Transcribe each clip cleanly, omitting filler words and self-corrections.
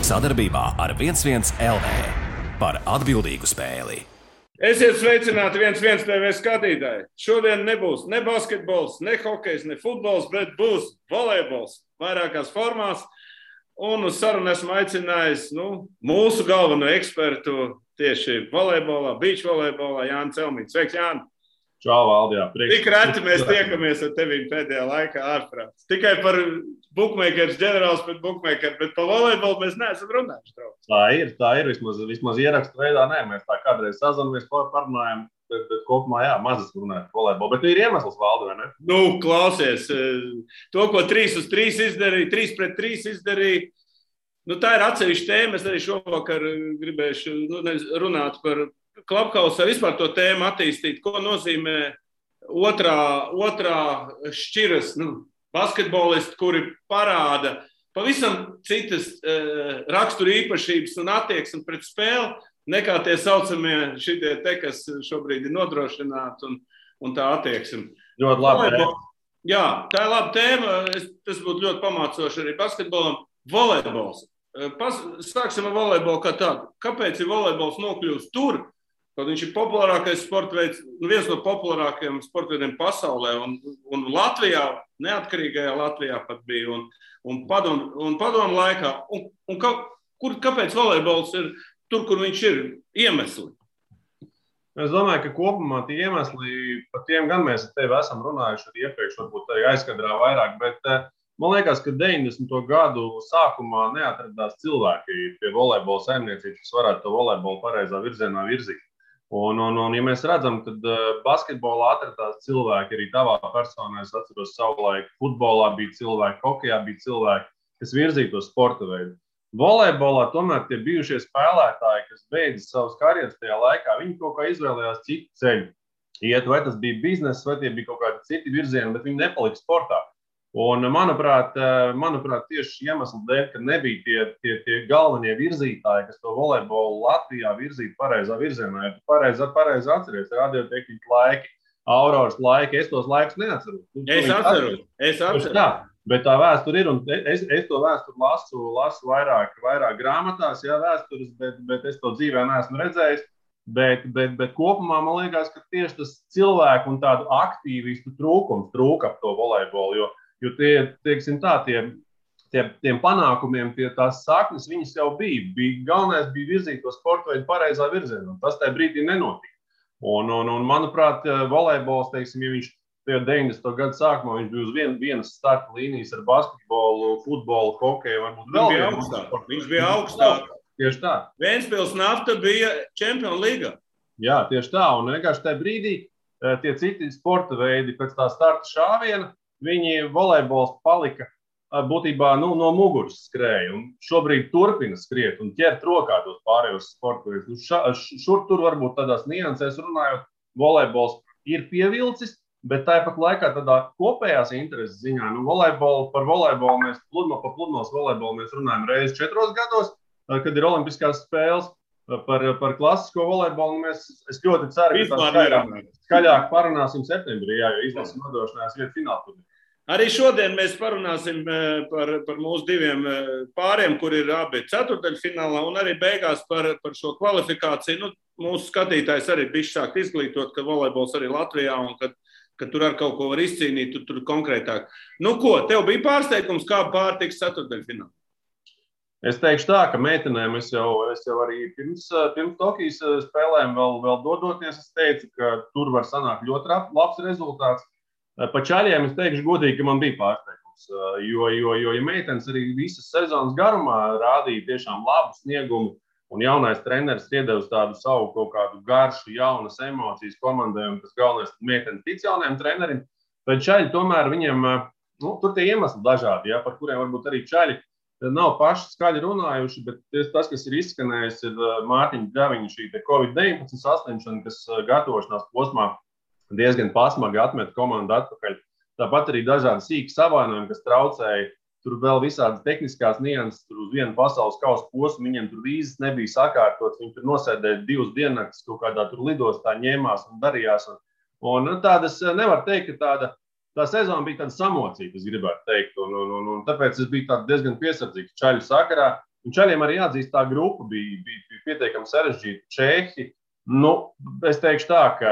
Sadarbībā ar 11 LV par atbildīgu spēli. Esiet sveicināti 11 TV skatītāji. Šodien nebūs ne basketbols, ne hokejs, ne futbols, bet būs volejbols vairākās formās. Un uz sarunu esmu aicinājis mūsu galveno ekspertu tieši volejbolā, beach volejbolā, Jānis Celmiņš. Sveiks, Jāni! Čau, Valdi, jā. Tik reti mēs tiekamies ar tevīm pēdējā laikā ārprāts. Tikai par bookmakers, ģenerāls pret bookmakeru, bet par volejbolu mēs neesam runājuši. Tā ir. Vismaz ierakstu veidā, nē. Mēs tā kādreiz sazinamies, parunājam, bet kopumā, jā, mazas runājam par volejbolu. Bet ir iemesls, Valdi, vai ne? Klausies, to, ko 3-uz-3 izdarīja, 3-pret-3 izdarīja, tā ir atsevišķa tēma. Es arī šovakar gribēšu runāt par Clubhouse, vispār to tēmu attīstīt, ko nozīmē otrā šķiras basketbolisti, kuri parāda pavisam citas rakstura īpašības un attieksmi pret spēli, nekā tie saucamie šitie te, kas šobrīd ir nodrošināti un tā attieksme. Ļoti labi tēma. Jā, tā ir laba tēma. Tas būtu ļoti pamācoši arī basketbolam. Volejbols. Sāksim ar volejbolu kā tādu. Kāpēc ir volejbols nokļūst tur? Kaut viņš ir populārākais sporta veids, viens no populārākajiem sporta veidiem pasaulē, un Latvijā, neatkarīgajā Latvijā pat bija, un padomu laikā. Kāpēc volejbols ir tur, kur viņš ir? Iemesli? Es domāju, ka kopumā tie iemesli, par tiem gan mēs ar tevi esam runājuši arī iepriekš, varbūt arī aizkadrā vairāk, bet man liekas, ka 90. gadu sākumā neatradās cilvēki pie volejbola saimniecības, kas varētu to volejbolu pareizā virzienā virzīt. Un ja mēs redzam, tad basketbolā atradās cilvēki, arī tavā personā, es atceros savulaik, futbolā bija cilvēki, hokejā bija cilvēki, kas virzīja to sporta veidu. Volejbolā tomēr tie bijušie spēlētāji, kas beidza savas karjeras tajā laikā, viņi kaut kā izvēlējās citu ceļu. Iet, vai tas bija bizness, vai tie bija kaut kādi citi virzieni, bet viņi nepalika sportā. Un, manuprāt, tieši iemeslu dēļ, ka nebija tie galvenie virzītāji, kas to volejbolu Latvijā virzītu pareizā virzienā. Ja tu pareizi atceries, radiotehnika laiki, Auroras laiki, es tos laikus neatceros. Es atceros. Bet tā vēsture ir, un es to vēsturi lasu vairāk grāmatās, jā, vēstures, bet es to dzīvē neesmu redzējis. Bet kopumā man liekas, ka tieši tas cilvēku un tādu aktīvistu trūkums trūka ap to volejbolu, jo tiem panākumiem, tās saknes, viņas jau bija. Galvenais bija virzīt to sporta veidu pareizā virzienā, un tas tajā brīdī nenotika. Un manuprāt, volejbols, ja viņš 90. gadu sākumā, viņš bija uz vienas starta līnijas ar basketbolu, futbolu, hokeju, varbūt vēl. Viņš bija augstāk. Tieši tā. Ventspils Nafta bija Čempionu līgā. Jā, tieši tā. Un vienkārši tajā brīdī tie citi sporta veidi pēc tā starta šāviena, viņi volejbols palika būtībā no muguras skrēja. Un šobrīd turpina skriet un ķert rokā tos pārējos sporta veidus. Šur tur varbūt tādās niansēs runājot, volejbols ir pievilcis, bet tāpat laikā tādā kopējās intereses ziņā, par volejbolu mēs pludmales volejbolu mēs runājam reizi 4 gados, kad ir olimpiskās spēles. Par klasisko volejbolu es ļoti ceru, ka skaļāk parunāsim septembrī, jo izlases nodrošinās vietu finālā. Arī šodien mēs parunāsim par mūsu diviem pāriem, kur ir abi ceturtdaļfinālā, un arī beigās par šo kvalifikāciju. Mūsu skatītājs arī bišķi sākt izglītot, ka volejbols arī Latvijā, un ka tur ar kaut ko var izcīnīt, tur konkrētāk. Tev bija pārsteigums, kā pārtiks ceturtdaļfinālā? Es teikšu tā, ka meitenēm es jau arī pirms Tokijas spēlēm vēl dodoties, es teicu, ka tur var sanākt ļoti labs rezultāts. Pa čaļiem es teikšu godīgi, ka man bija pārsteigums, jo ja meitenes arī visas sezonas garumā rādīja tiešām labu sniegumu, un jaunais treneris iedevis tādu savu kaut kādu garšu, jaunas emocijas komandai, un tas galvenais meitenes tic jaunajam trenerim, tad čaļi tomēr viņiem, tur tie iemesli dažādi, par kuriem varbūt arī čaļi nav paši skaļi runājuši, bet tas, kas ir izskanējis, ir Mārtiņa Ļaviņa šī Covid-19 saslimšana, kas gatavošanās posmā diezgan pasmagi atmet komandu atpakaļ. Tāpat arī dažādi sīki savainojumi, kas traucēja. Tur vēl visādas tehniskās nianses, tur uz vienu pasaules kausa posmu, viņiem tur vīzes nebija sakārtotas, viņi tur nosēdēja 2 diennaktis, kaut kādā tur lidostā ņēmās un darījās. Un tādas nevar teikt, ka tā sezona bija tāda samocīta, es gribētu teikt, un tāpēc es biju diezgan piesardzīgs čaļu sakarā. Un Čaļiem arī jāatzīst, tā grupa bija pietiekami sarežģīta. Čehi, es teikšu tā, ka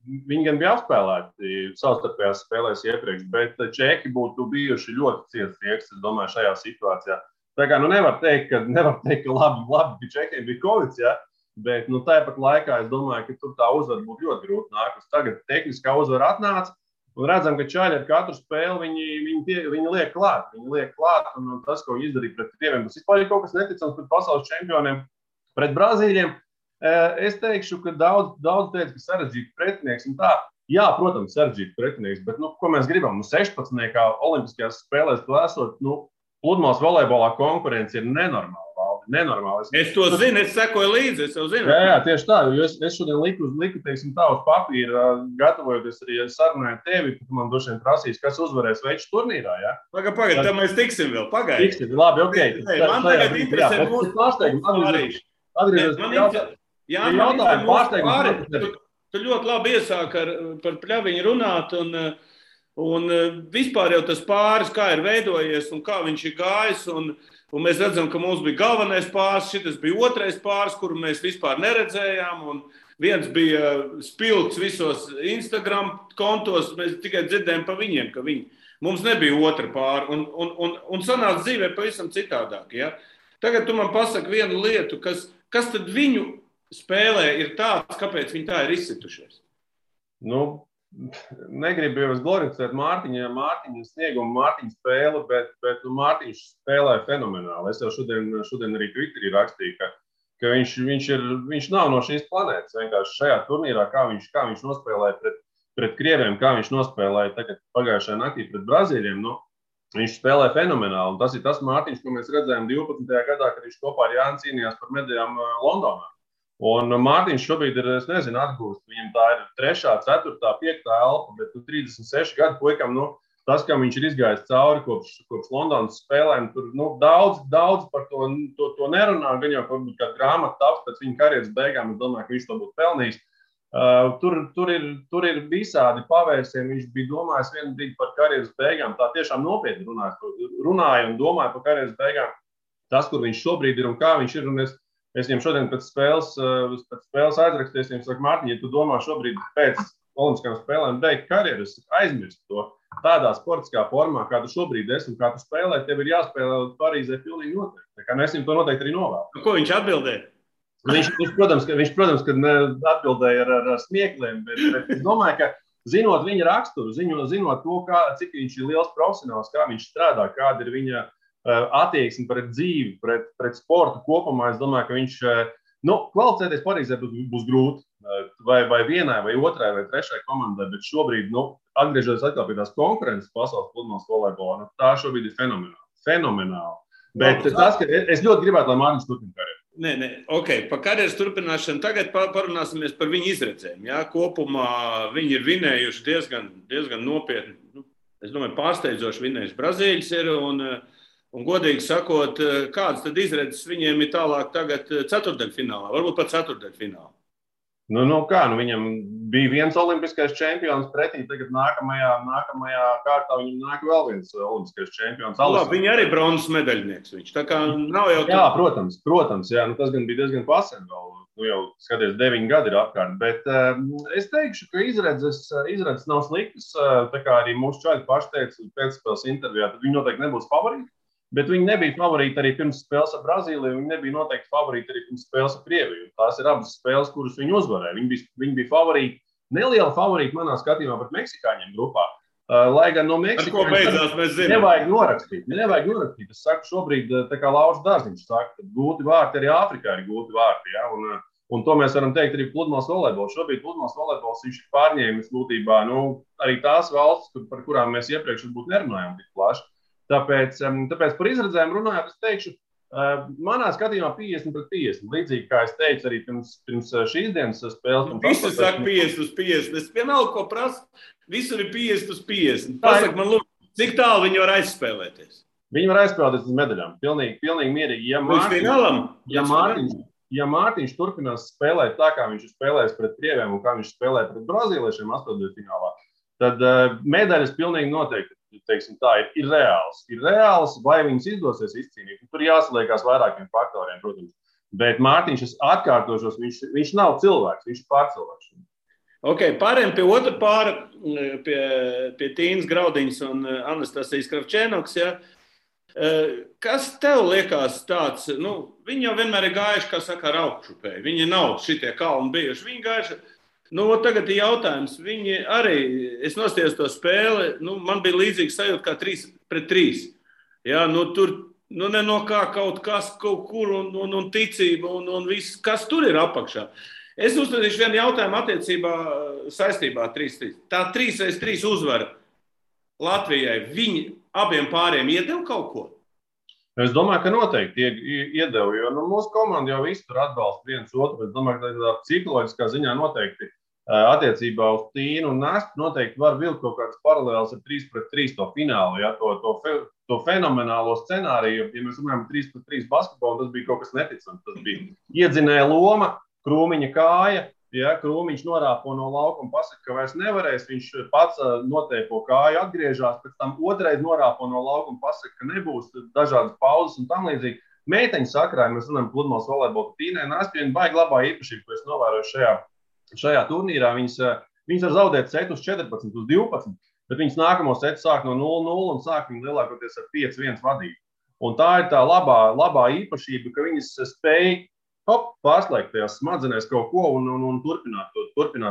viņi gan bija apspēlēti savstarpējās spēlēs iepriekš, bet Čehi būtu bijuši ļoti ciets rieks, es domāju, šajā situācijā. Tā kā nevar teikt, ka labi ka Čehiem bija Covid, ja? Bet tāpat laikā es domāju, ka tur tā uzvara būtu ļoti grūti nākus. Tagad tehniskā uzvara atnāca. Un redzam, ka Čaļi ar katru spēli viņi liek klāt. Viņi liek klāt, un tas, ko viņi izdarīja pret krieviem, tas vispār ir kaut kas neticams pret pasaules čempioniem, pret Brazīļiem. Es teikšu, ka daudz teica, ka sarežģīts pretinieks. Un tā, jā, protams, sarežģīts pretinieks, bet ko mēs gribam? 16. olimpiskajās spēlēs to esot, pludmales volejbolā konkurence ir nenormāla. Nenormāli. Es to zinu, es sekoju līdzi, es jau zinu. Jā, tieši tā, jo es šodien liku teiksim, tā uz papīra, gatavojoties arī sarunāju tevi, ka man droši vien prasīs, kas uzvarēs veču turnīrā, jā? Pagaid, tad mēs tiksim vēl, pagaid. Tiksim, labi, ok. Man tagad interesē mūsu pārsteigums. Tu ļoti labi iesāk par pļaviņu runāt, un vispār jau tas pāris, kā ir veidojies un kā viņš ir gājis, un mēs redzam, ka mums bija galvenais pāris, šitas bija otrais pāris, kuru mēs vispār neredzējām, un viens bija spilgts visos Instagram kontos, mēs tikai dzirdējām pa viņiem, ka mums nebija otra pāri, un sanāca dzīvē pavisam citādāk. Ja? Tagad tu man pasaki vienu lietu, kas tad viņu spēlē ir tāds, kāpēc viņi tā ir izsitušies? Negribu jau glorificēt Mārtiņa sniegumu, Mārtiņa spēli, bet Mārtiņš spēlē fenomenāli. Es jau šodien arī Twitterī rakstīju, ka viņš nav no šīs planētas. Vienkārši šajā turnīrā, kā viņš nospēlēja pret krieviem, kā viņš nospēlēja tagad pagājušajā naktī pret Brazīļiem, viņš spēlē fenomenāli. Un tas ir tas Mārtiņš, ko mēs redzējām 12. gadā, kad viņš kopā ar Jāni cīnījās par medaļām Londonā. Un Mārtiņš šobrīd ir, es nezinu, atgūst. Viņam tā ir 3., 4., 5. elpa, bet 36 gadu puikam, tas, kam viņš ir izgājis cauri kopš Londonas spēlēm, tur daudz par to nerunā, gan jau varbūt kā grāmata taps pēc viņa karjeras beigām, es domāju, ka viņš to būtu pelnījis. Tur ir visādi pavērsieni, viņš bija domājis vienu brīdi par karjeras beigām, tā tiešām nopietni runāja un domāja par karjeras beigām. Tas, kur viņš šobrīd ir un kā viņš ir, un es viņam šodien pēc spēles aizrakstīju, viņam saku, Mārtiņ, ja tu domā šobrīd pēc olimpiskajām spēlēm beigt karjeru, es aizmirstu to tādā sportiskā formā, kā tu šobrīd esi un kā tu spēlē, tev ir jāspēlē Parīzē pilnīgi noteikti. Tā kā es viņam to noteikti arī novēlu. Ko viņš atbildēja? Viņš, protams, ka atbildēja ar smiekliem, bet es domāju, ka zinot viņa raksturu, zinot to, cik viņš ir liels profesionāls, kā viņš strādā, kāda ir viņa attieksmi pret dzīvi, pret sportu kopumā, es domāju, ka viņš kvalificēties Parīzē būs grūti. Vai vienai, vai otrai, vai trešai komandai, bet šobrīd, atgriežoties atkal pie tās konkurences pasaules pludmales volejbolā, tā šobrīd ir fenomenāli. Bet tas, ka es ļoti gribētu, lai Mārtiņš turpina karjeru. Nē, ok, par karjeras turpināšanu tagad parunāsimies par viņu izredzēm. Ja? Kopumā viņi ir vinējuši diezgan nopietni, es domāju, pārsteidzoši vinējuši Brazīļus ir, un godīgi sakot, kādas tad izredzes viņiem ir tālāk tagad ceturtdaļfinālā, varbūt pat ceturtdaļfinālā? Viņam bija viens olimpiskais čempions pretī, tagad nākamajā kārtā viņam nāk vēl viens olimpiskais čempions. Viņi arī bronzas medaļnieks viņš, tā kā nav jau... Jā, protams, jā, tas gan bija diezgan pasen vēl, jau skaties 9 gadi ir apkārt, bet es teikšu, ka izredzes nav sliktas, tā kā arī mūsu čaļi paši teica pēcspēles intervijā, tad viņi noteikti nebūs favorīti. Bet viņi nebija favorīti arī pirms spēles ar Brazīliju, viņi nebija noteikti favorīti arī pirms spēles ar Krieviju. Tās ir abas spēles, kuras viņi uzvarēja. Viņi bija favorīti, neliela favorīti manā skatījumā pret meksikāņiem grupā. Lai gan no meksikāņiem nevajag norakstīt. Es saku šobrīd, tā kā Lauris Dārziņš saka, ka gūti vārti arī Āfrikā ir gūti vārti. Ja? Un to mēs varam teikt arī pludmales volejbols. Šobrīd pludmales volejbols viņš ir pārņēmis būtībā arī tās valstis, par kurām mēs iepriekš varbūt nerunājām tik plaši. Tāpēc par izredzēm runājot, es teikšu, manā skatījumā 50-50. Līdzīgi kā es teicu arī pirms šīs dienas spēles. Visi saka 50-50. Es vienalga, ko prasu, visur ir 50-50. Pasaka man, lūk, cik tālu viņi var aizspēlēties? Viņi var aizspēlēties uz medaļām. Pilnīgi mierīgi. Ja Mārtiņš turpinās spēlēt tā, kā viņš ir spēlējis pret krieviem un kā viņš spēlē pret brazīliešiem 8. finālā, tad medaļas pilnīgi noteikti teiksim tā, ir reāls. Ir reāls, vai viņas izdosies izcīnīt. Tur jāsaliekās vairākiem faktoriem, protams. Bet Mārtiņš, es atkārtošos, viņš nav cilvēks, viņš ir pārcilvēks. Ok, pārējiem pie otra pāra, pie Tīnas Graudiņas un Anastasijas Kravčēnoks, ja? Kas tev liekas tāds, viņi jau vienmēr ir gājuši, kā saka, ar augšupēju. Viņi nav šitie kalni bijuši. Viņi gājuši, tagad ir jautājums, viņi arī, es nostājos to spēli, man bija līdzīgs sajūta kā 3-3. Ja, tur, ne no kā kaut kas, kaut kur un ticība un viss, kas tur ir apakšā. Es uzstādīšu vienu jautājumu attiecībā saistībā 3-3. Tā 3-3 uzvara Latvijai, viņi abiem pāriem iedeva kaut ko? Es domāju, ka noteikti iedeva, jo mūsu komanda jau visu tur atbalsta viens otru. Es domāju, ka tā psiholoģiskā ziņā noteikti attiecībā uz Tīnu un Nastu noteikti var vilkt kaut kādas paralēlas ar 3-3 to finālu, ja, to fenomenālo scenāriju. Ja mēs runājam 3-3 basketbolu, tas bija kaut kas neticams. Tas bija iedzinēja loma, Krūmiņa kāja, ja, Krūmiņš norāpo no laukuma, pasaka, ka vairs nevarēs, viņš pats noteipo kāju, atgriežās, pēc tam otrais norāpo no laukuma, pasaka, ka nebūs dažādas pauzes un tam līdzīgi. Meiteņu sakrā, mēs runājam pludmales volejbolu, Tīnai Nastei baigi labā īpašība, ko es novēroju šajā turnīrā. Viņas var zaudēt setus 14 uz 12, bet viņas nākamo setu sāk no 0-0 un sāk viņu lielākoties ar 5-1 vadību. Un tā ir tā labā īpašība, ka viņas spēj pārslēgt tajās smadzenēs kaut ko un turpināt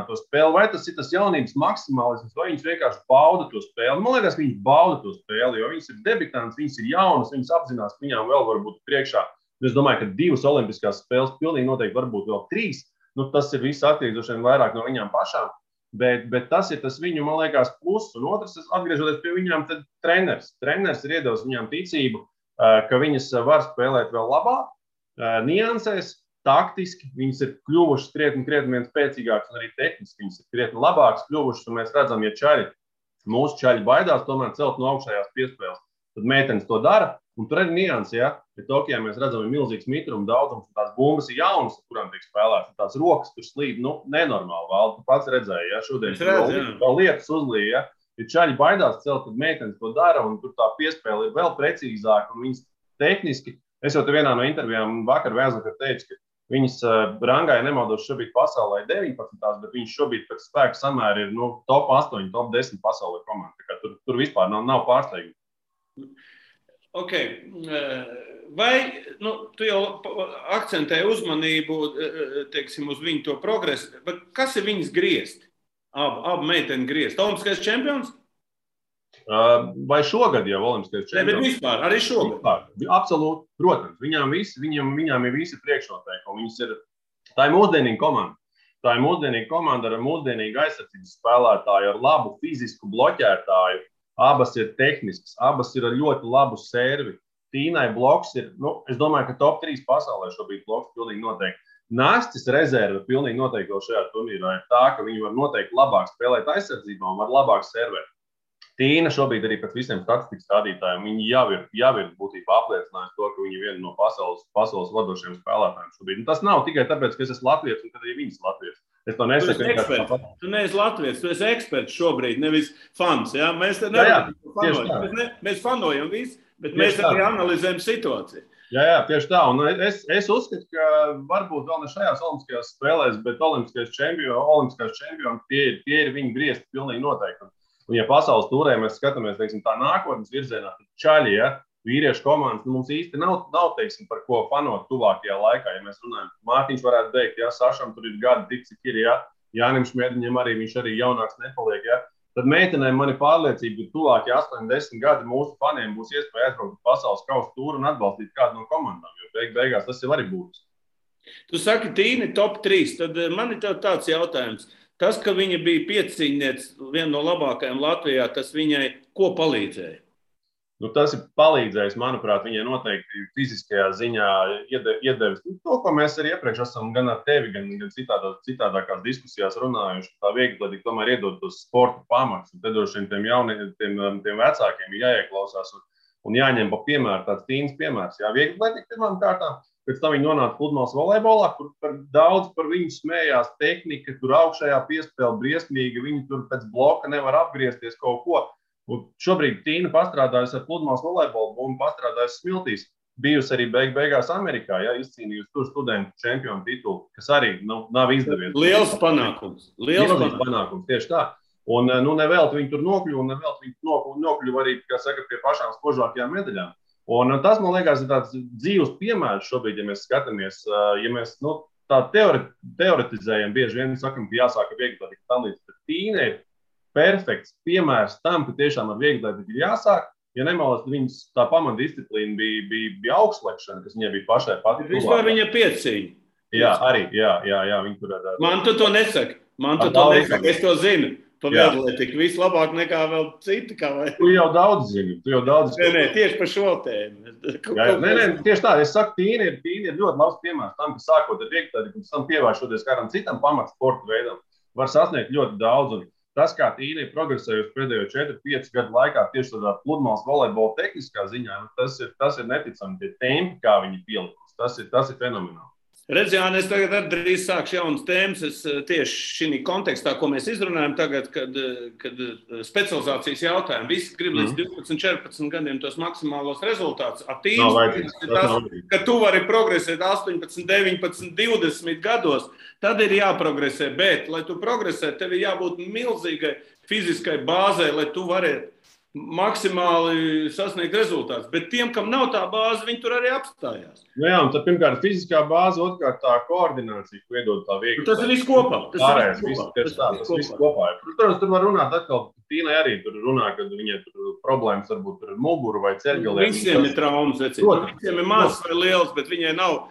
to spēli. Vai tas ir tas jaunības maksimālisms, vai viņas vienkārši bauda to spēli? Man liekas, viņas bauda to spēli, jo viņas ir debitantes, viņas ir jaunas, viņas apzinās, ka viņām vēl var būt priekšā. Es domāju, ka 2 olimpiskās spēles pilnīgi noteikti varbūt vēl 3. Tas ir viss atkarīgs vairāk no viņām pašām, bet tas ir tas viņu, man liekas, plus. Un otrs, atgriežoties pie viņām, tad treneris. Treneris ir iedevis viņām ticību, ka viņas var spēlēt vēl labāk, niansēs, taktiski, viņas ir kļuvušas krietni vien spēcīgākas un arī tehniski viņas ir krietni labākas kļuvušas, un mēs redzam, ja mūsu čaļi baidās tomēr celt no augšējās piespēles, tad meitenes to dara, un tur arī niansi, ja Tokijā mēs redzam, ir milzīgs mitruma daudzums, un tās bumbas ir jaunas, kurām tiek spēlētas, tās rokas tur slīd, nenormāli, Valdi, tu pats redzēji, ja šodien vēl lietas uzlīja, ja čaļi baidās celt, tad meitenes to dara, un tur tā piespēle ir vēl precīzāka, un viņas tehniski, es jau te vienā no intervijām vakar Vēzakar teicu, ka viņas rangā, ja nemaldos, šobrīd pasaulē 19, bet viņas šobrīd pēc spēka samēra ir top 8, top 10 pasaulē komanda. Tā kā tur vispār nav pārsteigumi. Ok. Vai tu jau akcentēji uzmanību, teiksim, uz viņu to progresu, bet kas ir viņas griezt? Abu meiteni griezt. Olimpiskais čempions? Vai šogad jau olimpiskais čempions? Ne, bet vispār, arī šogad. Absolūti, protams. Viņām ir visi priekšnoteikumi. Tā ir mūsdienīga komanda. Tā ir mūsdienīga komanda ar mūsdienīgu aizsardzības spēlētāju, ar labu fizisku bloķētāju. Abas ir tehniskas, abas ir ar ļoti labu servi. Tīnai bloks ir, es domāju, ka top 3 pasaulē šobrīd bloks pilnīgi noteikti. Nastis rezerve pilnīgi noteikti vēl šajā turnīrā ir tā, ka viņi var noteikti labāk spēlēt aizsardzībā un var labāk servēt. Tīna šobrīd arī pēc visiem statistikas rādītājiem, viņi jau ir būtībā apliecinājusi to, ka viņi ir viena no pasaules vadošiem spēlētājiem šobrīd. Un tas nav tikai tāpēc, ka es esmu latvietis un kad arī viņas latvietis. Es to nesaku. Tu neesi latvietis, tu esi eksperts šobrīd, nevis fans. Ja? Mēs te mēs fanojam visu, bet mēs arī analizējam situāciju. Jā, tieši tā. Un es uzskatu, ka varbūt vēl ne šajās olimpiskajās spēlēs, bet olimpiskais čempioni, tie ir viņi griezti pilnīgi noteikti. Un, ja pasaules turē mēs skatāmies, teiksim, tā nākotnes virzienā, tad čaļi, ja, vīriešu komandas, mums īsti nav teiksim, par ko fanot tuvākajā laikā. Ja mēs runājam, Mārtiņš varētu teikt, ja Sašam tur ir gadi tik, cik ir, ja, Jānim Šmēdiņam arī viņš arī jaunāks nepaliek, ja. Tad meitenēm man ir pārliecība, ka tuvākie 8-10 gadi mūsu faniem būs iespēja aizbraukt pasaules kausa tūru un atbalstīt kādu no komandām, jo beigās tas jau arī būs. Tu saki, Tīni top 3, tad man ir tev tāds jautājums. Tas, ka viņa bija piecīņniece, viena no labākajām Latvijā, tas viņai ko palīdzēja? Tas ir palīdzējis, manuprāt, viņai noteikti fiziskajā ziņā iedevis. To, ko mēs arī iepriekš esam gan ar tevi, gan citādākās diskusijās runājuši, tā viegli tomēr iedod tos sporta pamats. Un te droši vien tiem vecākiem ir jāieklausās un jāņem pa piemēru, tāds Tīnas piemērs. Jā, viegli atletika pirmām kārtām. Pēc tam viņi nonāca pludmales volejbolā, kur daudz par viņu smējās, tehnika, tur augšējā piespēle briesmīga, viņi tur pēc bloka nevar apgriezties kaut ko. Un šobrīd Tīna pastrādājusi ar pludmales volejbolu un pastrādājusi Smiltīs. Bijusi arī beigās Amerikā, izcīnījusi tur studentu čempionu titulu, kas arī nav izdevies. Liels panākums. Liels panākums, tieši tā. Un nevelti viņi tur nokļuva, un nevelti viņi nokļuva arī, kā saka, pie pašām spožākajām medaļām. Un tas, man liekas, ir tāds dzīves piemērs šobrīd, ja mēs skatāmies, ja mēs tā teoretizējam, bieži vien sakam, ka jāsāk ar vieglatlētiku tam līdz, bet Tīna ir perfekts piemērs tam, ka tiešām ar vieglatlētiku ir jāsāk. Ja nemaldos, viņas tā pamatdisciplīna bija augstslēgšana, kas viņai bija pašai pati. Vispār viņa piecīņa. Jā, arī, jā, viņi tur ar... Man tu to nesaki, es to zinu. Pa vieglatlētiku vislabāk nekā vēl citi, kā vai? Tu jau daudz zini, Nē, tieši par šo tēmu. Nē, tieši tā, es saku, Tīna ir ļoti labs piemērs tam, ka sākot ar vieglatlētiku un tam pievēršoties kādam citam pamatsporta veidam, var sasniegt ļoti daudz. Un tas, kā Tīna ir progresējusi pēdējo 4-5 gadu laikā tieši tādā pludmales volejbola tehniskā ziņā, tas ir neticami, tie tempi, kā viņi pielikusi. Tas ir fenomenāli. Redz, Jāni, es tagad arī drīz sākšu jaunas tēmas. Es tieši šī kontekstā, ko mēs izrunājam tagad, kad specializācijas jautājumu, visi grib līdz 12-14 gadiem tos maksimālos rezultātus. Ka tu vari progresēt 18, 19, 20 gados, tad ir jāprogresē. Bet, lai tu progresē, tev ir jābūt milzīgai fiziskai bāzei, lai tu varētu maksimāli sasniegt rezultātus. Bet tiem, kam nav tā bāze, viņi tur arī apstājās. Jā, un tad pirmkārt fiziskā bāze, otrkārt tā koordinācija, ko iedod tā viegli. Tas ir viss kopā. Tas viss kopā. Protams, tur var runāt atkal, Tīnai arī tur runā, kad viņai tur problēmas varbūt ar muguru vai ceļgaliem. Visiem ir traumas, visiem ir mazs vai liels, bet viņai nav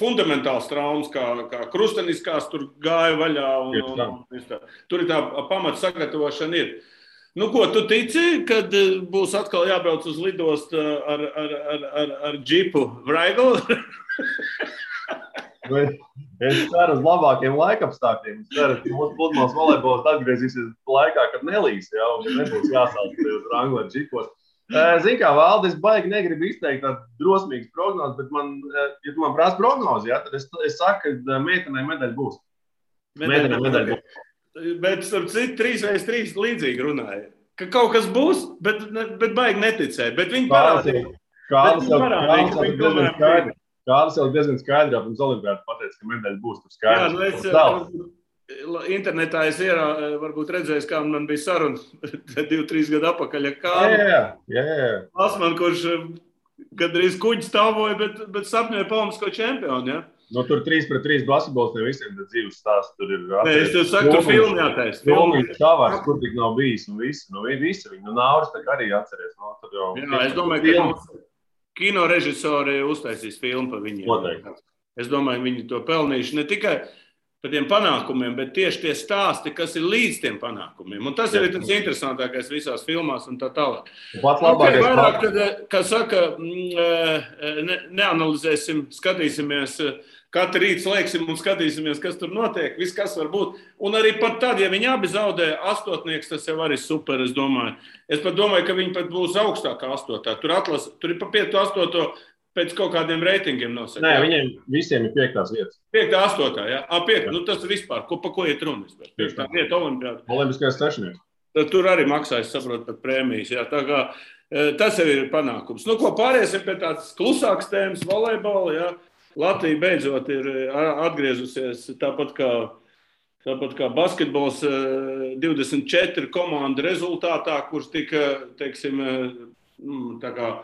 fundamentāls traumas, kā krusteniskās tur gāja vaļā. Tur ir tā pamata sagatavošana ir. Nu, ko tu tici, kad būs atkal jābrauc uz lidostu ar džipu Vraiglu? Es ceru uz labākiem laikapstākļiem. Es ceru, ka mūsu pludmales volejbols atgriezīsies laikā, kad nelīs, un nebūs jāsauc uz Wrangler ar džipos. Zini kā, Valdi, es baigi negribu izteikt tādu drosmīgu prognozi, bet ja tu man prasa prognozi, tad es saku, ka meitenei medaļa būs. Meitenei medaļa būs. Bet starp citu 3x3 līdzīgi runāja. Ka kaut kas būs, bet baigi neticēja. Bet viņi parādīja. Kādas jau diezgan skaidrā pirms olimpiādas pateica, ka medaļa būs tur skaidrs. Internetā es varbūt redzēju, kā man bija saruna 2-3 gadu apakaļ. Asman, kurš gandrīz kuģi stāvoja, bet sapņoja olimpisko čempionu, ja? Tur 3-3 basketbols ne visiem dzīves stāsts. Tur ir es tev saku, tur filmu jātais. Filmīt Tavars, kur tik nav bijis un visi. Visi viņi. Nauris tā arī atceries. Es domāju, ka kino režisori uztaisīs filmu par viņiem. Noteikti. Es domāju, viņi to pelnījuši ne tikai par tiem panākumiem, bet tieši tie stāsti, kas ir līdz tiem panākumiem. Un tas ir tas interesantākais visās filmās un tā tālāk. Vairāk, kā saka, neanalizēsim, skatīsimies, katru rītu slēgsim un skatīsimies, kas tur notiek, viss, kas var būt. Un arī pat tad, ja viņi abi zaudē astotnieks, tas jau arī super, es domāju. Es pat domāju, ka viņi pat būs augstākā astotā. Tur ir pa 5-8 pēc kaut kādiem reitingiem nosaka. Nē, viņiem visiem ir 5. vietas. 5-8, jā? 5, tas ir vispār. Pa ko iet runas? 5. vieta olimpiāda. Olimpiskais sešnieks. Tur arī maksājas, saprot, pat prēmijas. Jā. Tā kā tas jau ir panākums. Nu, ko pāriesim pie tādas klusākas tēmas volejbola, jā. Latvija beidzot ir atgriezusies tāpat kā basketbols 24 komandu rezultātā, kurš tika, teiksim, tā kā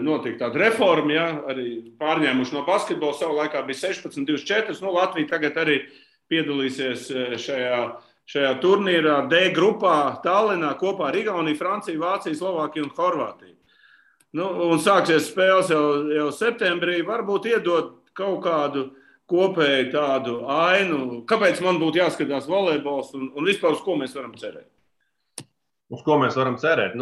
notika tāda reforma, ja, arī pārņēmuši no basketbola, savu laikā bija 16-24, Latvija tagad arī piedalīsies šajā turnīrā D grupā Tallinā kopā ar Igauniju, Franciju, Vāciju, Slovākiju un Horvātiju. Un sāksies spēles jau septembrī, varbūt iedot kaut kādu kopēju tādu ainu, kāpēc man būtu jāskatās volejbols un vispār uz ko mēs varam cerēt. Uz ko mēs varam cerēt?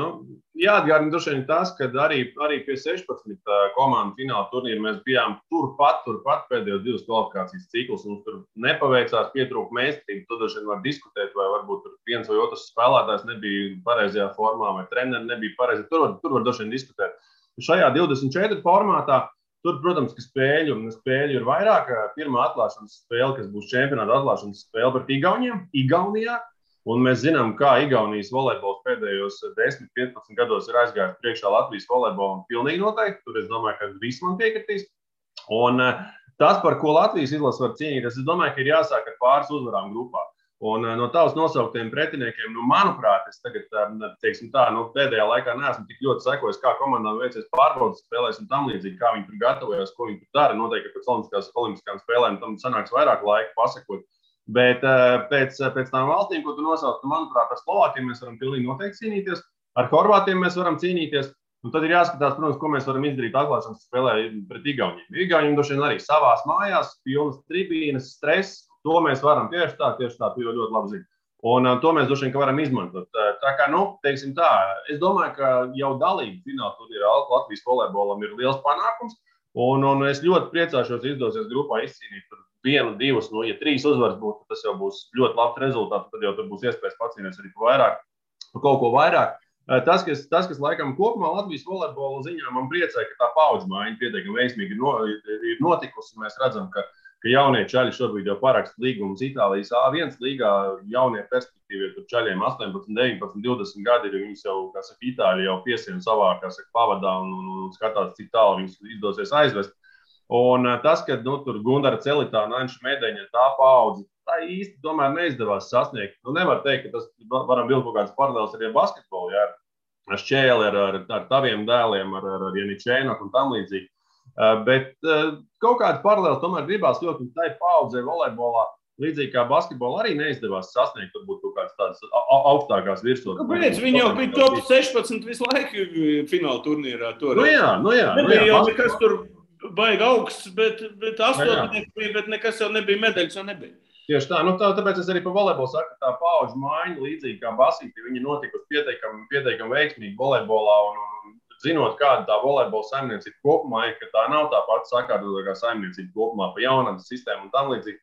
Jāatgādina droši vien tas, ka arī pie 16 komandu fināla turnīra mēs bijām turpat pēdējos 2 kvalifikācijas ciklus. Mums tur nepaveicās, pietrūka meistarība. Tur droši vien var diskutēt, vai varbūt viens vai otrs spēlētājs nebija pareizajā formā, vai treneri nebija pareizi. Tur var droši vien diskutēt. Šajā 24 formātā, tur, protams, ka spēļu ir vairāk. Pirmā atklāšanas spēle, kas būs čempionāta atklāšanas spēle pret Igaunijā. Un mēs zinām, kā Igaunijas volejbols pēdējos 10-15 gados ir aizgājis priekšā Latvijas volejbolam pilnīgi noteikti. Tur es domāju, ka visi man piekritīs. Un tas, par ko Latvijas izlase var cīnīties, es domāju, ka ir jāsāk ar pāris uzvarām grupā. Un no tavas nosauktiem pretiniekiem, manuprāt, es tagad, teiksim tā, pēdējā laikā neesmu tik ļoti sekojis, kā komandām veicies pārbaudas spēlēs un tam līdzīgi, kā viņi tur gatavojas, ko viņi tur dara. Noteikti, ka pēc olimpiskām spēlēm tam sanāks vairāk laika pasakot. Bet pēc tām valstīm, ko tu nosauc, manuprāt, ar Slovākiem mēs varam pilnīgi noteikti cīnīties, ar Horvātiem mēs varam cīnīties. Un tad ir jāskatās, protams, ko mēs varam izdarīt atklāšanas spēlē pret Igauniem. Igauniem droši vien arī savās mājās, pilnas tribīnes, stress. To mēs varam tieši tā, tu jau ļoti labi zini. Un to mēs droši vien varam izmantot. Tā kā, teiksim tā, es domāju, ka jau dalība fināla turnīrā Latvijas volejbolam ir liels panākums. Un es ļoti priecāšos izdosies grupā izcīnīt 1, 2, ja 3 uzvaras būtu, tas jau būs ļoti labs rezultāts. Tad jau tur būs iespējas pacīnīties arī par kaut ko vairāk. Tas, kas laikam kopumā Latvijas volejbola ziņā man priecē, ka tā paudžu maiņa pietiekami veiksmīgi ir notikusi. Mēs redzam, ka jaunie čaļi šobrīd jau paraksta līgumus Itālijas A1 līgā. Jaunie perspektīvie tur čaļiem 18, 19, 20 gadi ir. Viņus jau, kā saka, Itāļi jau piesien savā, kā saka, pavadā un skatās, cik tālu viņus izdosies aizvest. Un tas, ka tur Gundara Celitāna, Anša Medeņa, tā paudze, tā īsti tomēr neizdevās sasniegt. Nevar teikt, ka tas varam vilkt kaut kādas paralēlas arī ar basketbolu, ja, ar Šķēli, ar taviem dēliem, ar Janičēnoku un tam līdzīgi. Bet kaut kādas paralēlas tomēr gribās ļoti, un tai paudzei volejbolā, līdzīgi kā basketbolā, arī neizdevās sasniegt varbūt kaut kādas tādas augstākās virsotnes. Kāpēc? Viņi jau bija top 16 visu laiku fināla turnīrā. Jā. Nebija jau nekas tur baigi augsts, bet 8 bija, bet nekas jau nebija, medaļas jau nebija. Tieši tā, tāpēc es arī par volejbolu saku, ka tā paudžu maiņa, līdzīgi kā basīti, viņi notikusi pietiekami veiksmīgi volejbolā, un zinot, kāda tā volejbola saimniecība kopumā ir, ka tā nav tā pati sakārtotākā saimniecība kopumā pa jaunatnes sistēmu un tam līdzīgi.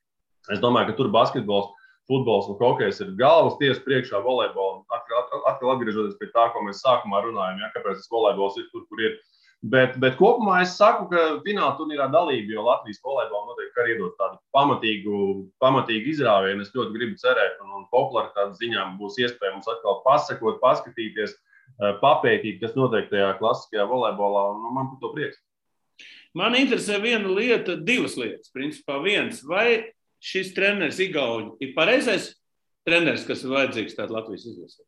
Es domāju, ka tur basketbols, futbols un hokejs ir galvas tiesa priekšā volejbolam. Atkal atgriežoties pie tā, ko mēs sākumā runājam, ja, kāpēc tas volejbols ir tur, kur ir. Bet kopumā es saku, ka fināla turnīrā dalība, jo Latvijas volejbolam noteikti arī iedod tādu pamatīgu izrāvienu. Es ļoti gribu cerēt, un popularitātes ziņā būs iespēja mums atkal pasakot, paskatīties, papētīt, kas notiek tajā klasiskajā volejbolā, un man par to prieks. Man interesē viena lieta, divas lietas. Principā viens, vai šis treneris Igauņi ir pareizais treneris, kas ir vajadzīgs tāda Latvijas izlasē?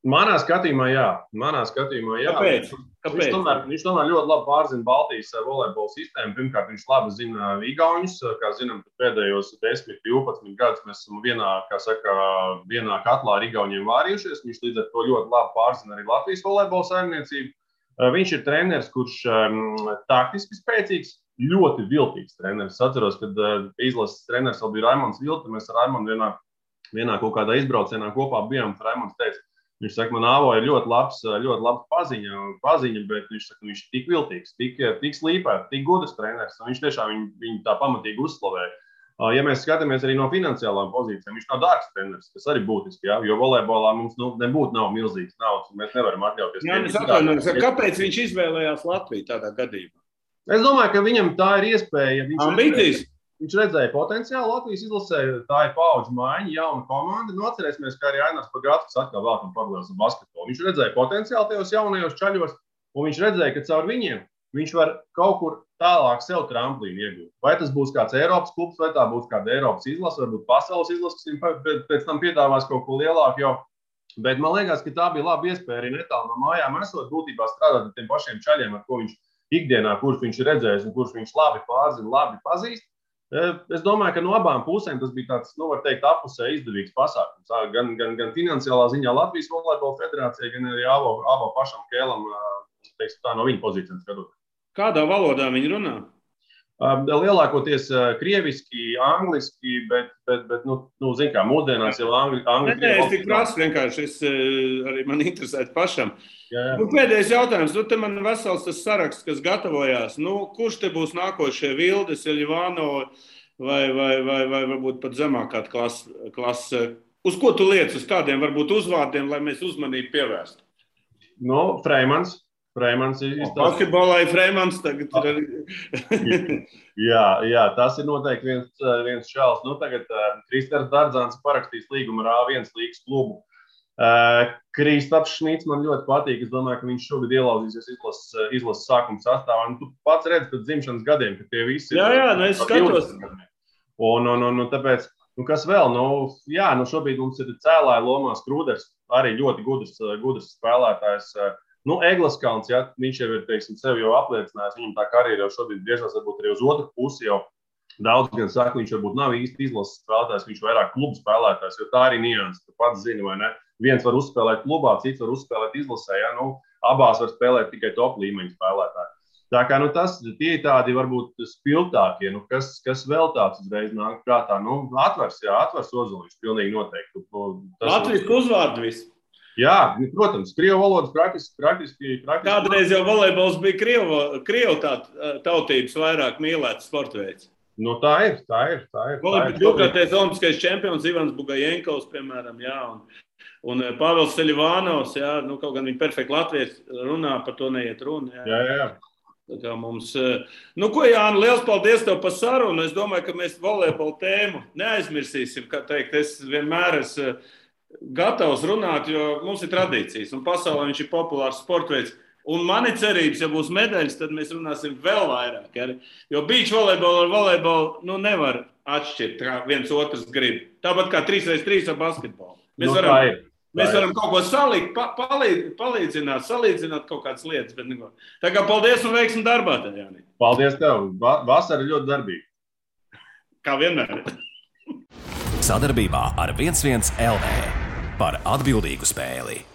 Manā skatījumā, jā. Kāpēc? Viņš tomēr ļoti labi pārzina Baltijas volejbola sistēmu. Pirmkārt, viņš labi zina Igauņus. Kā zinām, pēdējos 10, 12 gadus mēs esam vienā katlā ar Igauņiem vārījušies. Viņš līdz ar to ļoti labi pārzina arī Latvijas volejbola saimniecību. Viņš ir treneris, kurš taktiski spēcīgs, ļoti viltīgs treneris. Es atceros, kad izlases treneris vēl bija Raimonds Vilta. Mēs ar Raimondu vienā kaut kādā izbraucienā kopā bijām. Raimonds teica, viņš saka, man Āvo ir ļoti labs paziņa, bet viņš saka, viņš ir tik viltīgs, tik slīpēts, tik gudrs treneris. Viņš tiešām viņu tā pamatīgi uzslavēja. Ja mēs skatāmies arī no finansiālām pozīcijām, viņš nav dārgs treneris, kas arī būtiski, ja? Jo volejbolā mums nav milzīgs naudas, un mēs nevaram atļauties. Kāpēc viņš izvēlējās Latviju tādā gadījumā? Es domāju, ka viņam tā ir iespēja. Viņš redzēja potenciālu Latvijas izlasē, tā ir paudžu maiņa, jauna komanda. Atcerēsimies, ka arī Ainars Pagātskis atkal vēlkam paralēlis ar basketbolu. Viņš redzēja potenciālu tajos jaunajos čaļos, un viņš redzēja, ka caur viņiem viņš var kaut kur tālāk sev tramplīnu iegūt. Vai tas būs kāds Eiropas klubs, vai tā būs kāda Eiropas izlase, varbūt pasaules izlase, kas viņam pēc tam piedāvās kaut ko lielāku jau. Bet man liekas, ka tā bija laba iespēja arī netālu no mājām esot būtībā strādāt ar tiem pašiem čaļiem, ar ko viņš ikdienā, kurš viņš ir redzējis un kurš viņš labi pārzina, labi pazīst. Es domāju, ka no abām pusēm tas bija tāds, var teikt, apusē izdevīgs pasākums. Gan finansiālā ziņā Latvijas volejbola federācijai, gan arī Āvo pašam Kēlam, teiksim tā, no viņa pozīcijas skatot. Kādā valodā viņi runā? Lielākoties krieviski, angliski, bet zin kā, mūsdienās jau angļu. Es tik prasu vienkārši, arī man interesētu pašam. Jā. Pēdējais jautājums, te man vesels tas saraksts, kas gatavojās. Kurš te būs nākošie Vildes, Eļivāno vai varbūt pat zemākā klase? Uz ko tu liec, uz kādiem varbūt uzvārdiem, lai mēs uzmanību pievērstu? Freimans. Freimans izstāsta. Basketbolā ir Freimans tagad. jā, tas ir noteikti viens šāls. Nu, tagad Kristers Dardzāns parakstīs līgumu ar A1 līgas klubu. Kristaps Šmits man ļoti patīk. Es domāju, ka viņš šogad ielauzīsies izlases sākuma sastāvā. Tu pats redzi pēc dzimšanas gadiem, ka tie visi ir. Jā, es skatos. Un tāpēc, kas vēl? Šobrīd mums ir cēlāja lomās Krūders, arī ļoti gudrs spēlētājs. Eglaskalns, viņš jau ir, teiksim, sevi jau apliecinājis. Viņam tā karjera jau šobrīd griežās varbūt arī uz otru pusi jau. Daudz gan saka, viņš varbūt nav īsti izlases spēlētājs, viņš vairāk klubu spēlētājs, jo tā arī nianses, tu pats zini, vai ne? Viens var uzspēlēt klubā, cits var uzspēlēt izlasē, abās var spēlēt tikai top līmeņa spēlētāji. Tā kā, tie ir tādi varbūt spilgtākie, kas vēl tāds uzreiz nāk prātā, atvers Ozoliņš, pilnīgi noteikti. Latvijas uzvārdu viss. Jā, protams, krievu valodas praktiski. Kādreiz jau volejbols bija krievu tautības vairāk mīlēts sportveids. Tā ir. Divkārtais olimpiskais čempions Ivans Bugajenkovs, piemēram, un Pāvils Seļivānovs, kaut gan viņi perfekti latvieši runā, par to neiet runa. Jā. Tā kā mums, Jāni, liels paldies tev par sarunu. Es domāju, ka mēs volejbola tēmu neaizmirsīsim, kā teikt, es vienmēr esmu gatavs runāt, jo mums ir tradīcijas, un pasaulē viņš ir populārs sportveids. Un man ir cerības, ja būs medaļas, tad mēs runāsim vēl vairāk. Jo beach volejbolu ar volejbolu nevar atšķirt, kā viens otrs grib. Tāpat kā 3x3 ar basketbolu. Mēs varam kaut ko salikt, salīdzināt kaut kādas lietas. Bet neko. Tā kā paldies un veiksmi darbā, Jāni. Paldies tev. Vasara ļoti darbīga. Kā vienmēr. Sadarbībā ar 11 LV par atbildīgu spēli.